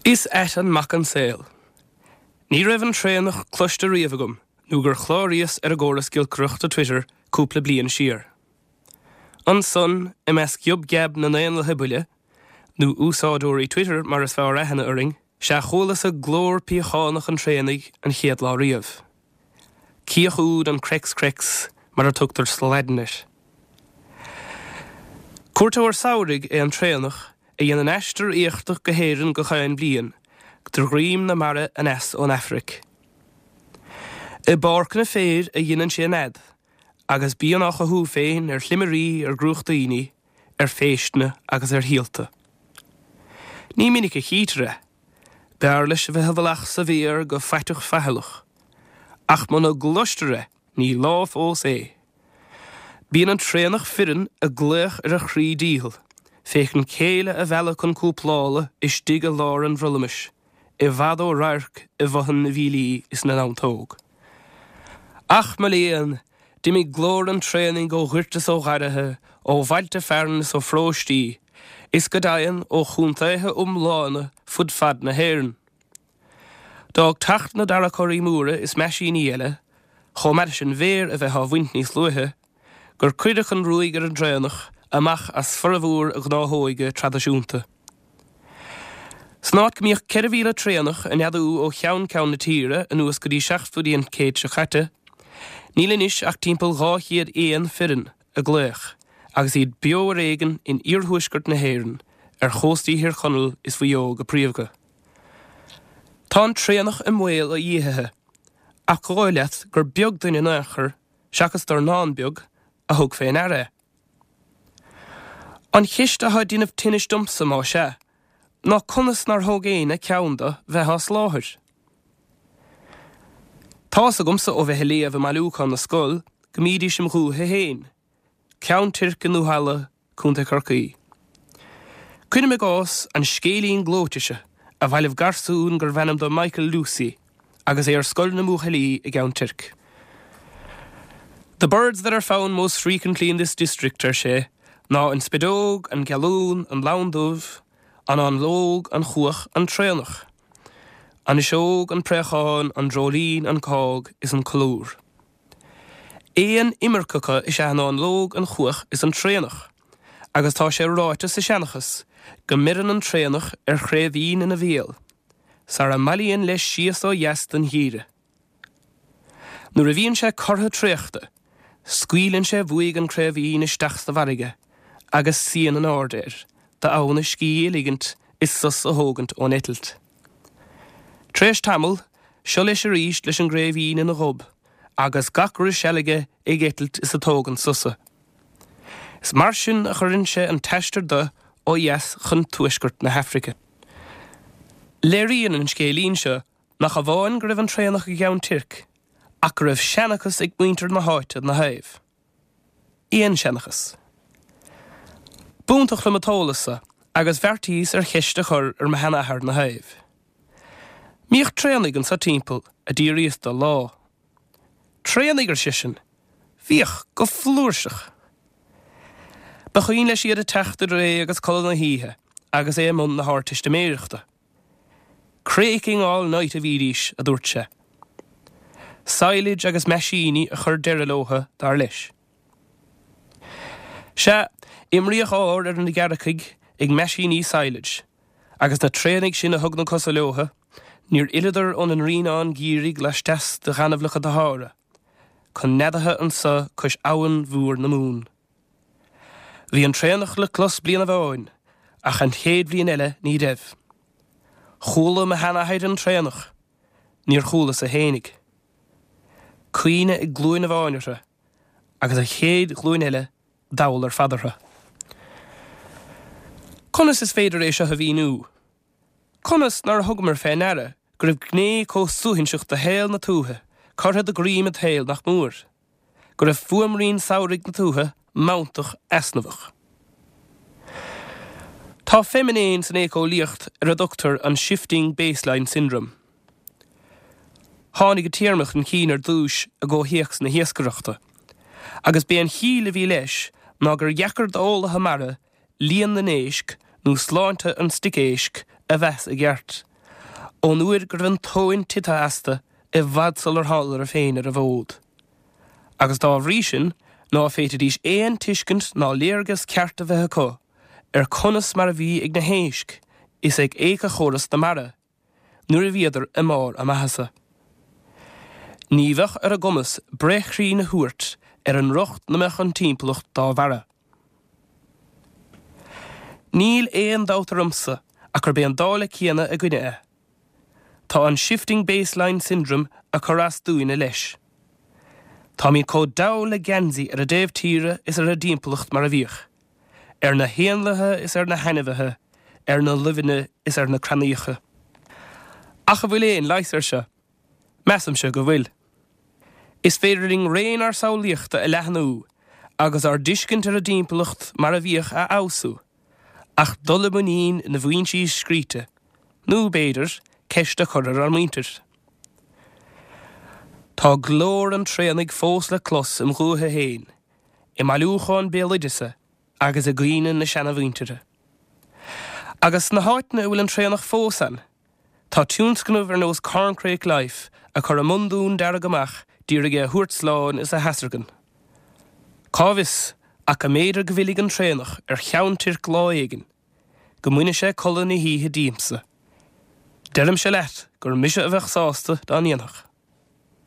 Is ait an mac an saol. Ní raibh an traonach cloiste riamh agam nó gur chláraíos ar an gcóras giolcaireachta Twitter cúpla bliain siar. Ansan, i measc ghiob geab na n-éanlaithe buile, nó úsáideoirí Twitter mar is fearr aithne orainn, sea chualasa glór piachánach an traonaigh an chéad lá riamh. Cíoch úd an Crex Crex mar a tugtar sa Laidin air. Cuairteoir samhraidh é an traonach a dhéanann aistear éachtach go hÉirinn gach aon bhliain, de dhroim na mara aneas ón Afraic. I bpáirceanna féir a dheineann sé a nead, agus bíonn á chothú féin ar shlimirí, ar dhrúchtaíní, ar phéisteanna agus ar shíolta. Ní minic a chítear é. B'fhearr leis a bheith i bhfolach sa bhféar go faiteach faichilleach. Ach muna gcloistear é, ní lá fós é. Bíonn an traonach fireann ag glaoch ar a chroí dícheall, féachaint céile a mhealladh chun cúplála istigh i lár an bhrollamais, i bhfad ó radharc i bhfothain na bhfiailí is na ndamhtóg. Ach, mo léan, d'imigh glór an traonaigh ó ghoirt is ó gharraithe, ó bhailte fearainn is ó pharóistí, is go deimhin ó chontaetha iomlána fud fad na hÉireann. D'fhág teacht na dtarracóirí móra is meaisíní eile, chomh maith leis an bhféar a bheith á bhaint níos luaithe, gur cuireadh an ruaig ar an dtraonach amach as formhór a ghnáthóige traidisiúnta. San áit go mbíodh 4,000 traonach ag neadú ó cheann ceann na tíre anuas go dtí seachtóidí an chéid seo caite, níl anois ach timpeall 200 éan fireann ag glaoch agus iad beo ar éigean in iarthuaisceart na hÉireann, ar chóstaí Thír Chonaill is Mhaigh Eo go príomha. Tá an traonach i mbaol a dhíothaithe, ach dhóigh leat gur beag duine in aon chor, seachas dornán beag, a thug fé ndeara é. An cheist atá ag déanamh tinnis domsa, más ea, ná conas nár thóg éinne ceann do bheith á shláthair? Tá's agamsa ó bheith ag léamh i mBailiúchán na Scol go mbídís im dhúiche féin, Ceann Toirc i nDúthalla, Co. Chorcaí. Cuirim i gcás an scéilín gleoite seo a bhailigh garsún gurbh ainm dó Michael Lucey agus é ar scoil na mbuachaillí i gCeann Toirc. The birds that are found most frequently in this district, ar sé, ná an spideog, an gealún, an lann dubh, an fháinleog, an chuach, an traonach, an fhuiseog, an préachán, an dreoilín, an cág is an colúr. Éin imirceacha is ea an fháinleog, an chuach is an traonach, agus tá sé ráite sa seanchas go mbeireann an traonach ar chraoibhín ina bhéal sara mbailíonn leis síos ó dheas don gheimhreadh. Nuair a bhíonn sé cortha traochta, scaoileann sé uaidh an craoibhín isteach sa bhfarraige agus suíonn in airde air d'fhonn a scíth a ligint is sos a thógaint ón eitilt. Tar éis tamaill, seo leis arís leis an gcraoibhín ina ghob agus gach re seal aige ag eitilt is ag tógaint sosa. Is mar sin a chuireann sé an t-aistear de ó dheas chun tuaisceart na hAfraice. Léiríonn an scéilín seo nach amháin go raibh an traonach i gCeann Toirc, ach go raibh seanchas ag muintir na háite 'na thaobh. Éan-seanchas. B'iontach liom an t-eolas so agus bheartaíos ar cheist a chur ar mo sheanathair 'na thaobh. Mbíodh traonaigh anso timpeall, a d'fhiafraíos de lá. Traonaigh, ar seisean. Bhíodh, go flúirseach. Ba chuimhin leis iad ag teacht idir é agus codladh na hoíche agus é i mbun na hArdteistiméireachta. Craking all night a bhídís, a dúirt sé. Silage agus meaisíní a chuir deireadh leotha, dar leis. Sea, imríodh ár ar na gearrcaigh ag meaisíní silage, agus na traonaigh sin a thug na cosa leotha, níor fhilleadar óna ndroighneán geimhridh laisteas de ghaineamhlacha na Shahára, chun neadaithe anso cois abhann mhór na Mumhan. Bhí an traonach le clos bliain amháin, ach an chéad bhliain eile ní raibh. Chuala mo sheanathair an traonach, níor chualasa fhéinig. Cuimhne ag glúin amháin orthu, agus an chéad ghlúin eile dall ar fad orthu. Conas is féidir é seo a mhíniú? Conas nár thugamar fé ndeara go raibh gné chomh suaithinseach de shaol na tuaithe curtha de dhroim an tsaoil nach mór? Go raibh fuaimrian samhraidh na tuaithe mantach easnamhach? Tá feiniméan san éiceolaíocht ar a dtugtar an Shifting Baseline Syndrome. Tháinig an téarma chun cinn ar dtús i gcomhthéacs na hiascaireachta, agus b'é an chiall a bhí leis ná gur dheacair d'eolaithe mara líon na n-éisc nó sláinte an stoic éisc a mheas i gceart. Ón uair go raibh an tóin tite astu i bhfad sular thánadar féin ar an bhfód. Agus dá bhrí sin ná féadfaidís aon tuiscint ná léargas ceart a bheith acu ar conas mar a bhí ag na héisc is ag éiceachóras na mara nuair a bhíodar i mbarr a maitheasa. Ní bheadh ar a gcumas breith chruinn a thabhairt ar an riocht 'na mbeadh an timpeallacht dá bharra. Níl aon dabht ormsa ach gurb é an dála céanna againne é. Tá an shifting baseline syndrome ag cur as dúinne leis. Táimid chomh dall le geansaí ar an dtaobh tíre is ar an dtimpeallacht mar a bhíodh, ar na héanlaithe is ar na hainmhithe, ar na luibheanna is ar na crannaíocha. Ach an bhfuil aon leigheas air seo? Measaimse go bhfuil. Is féidir linn raon ár samhlaíochta a leathnú agus ár dtuiscint ar an dtimpeallacht mar a bhíodh a fheabhsú, ach dul i muinín na bhfoinsí scríte, nó, b'fhéidir, ceist a chur ar ár muintir. Tá glór an traonaigh fós le clos im dhúiche féin, i mbailiúchán béaloideasa agus i gcuimhne na seanamhuintire. Agus sna háiteanna a bhfuil an traonach fós ann, Tá tionscnaimh ar nós Corncrake Life ag cur a mbundún dearg amach d'iarraidh é a thabhairt slán is a theasargan. Cá bhfios ach go mb'fhéidir go bhfillfidh an traonach ar Cheann Toirc lá éigin, go mbainfidh sé codladh na hoíche díomsa. Deirimse leat gur mise a bheadh sásta dá ndéanfadh.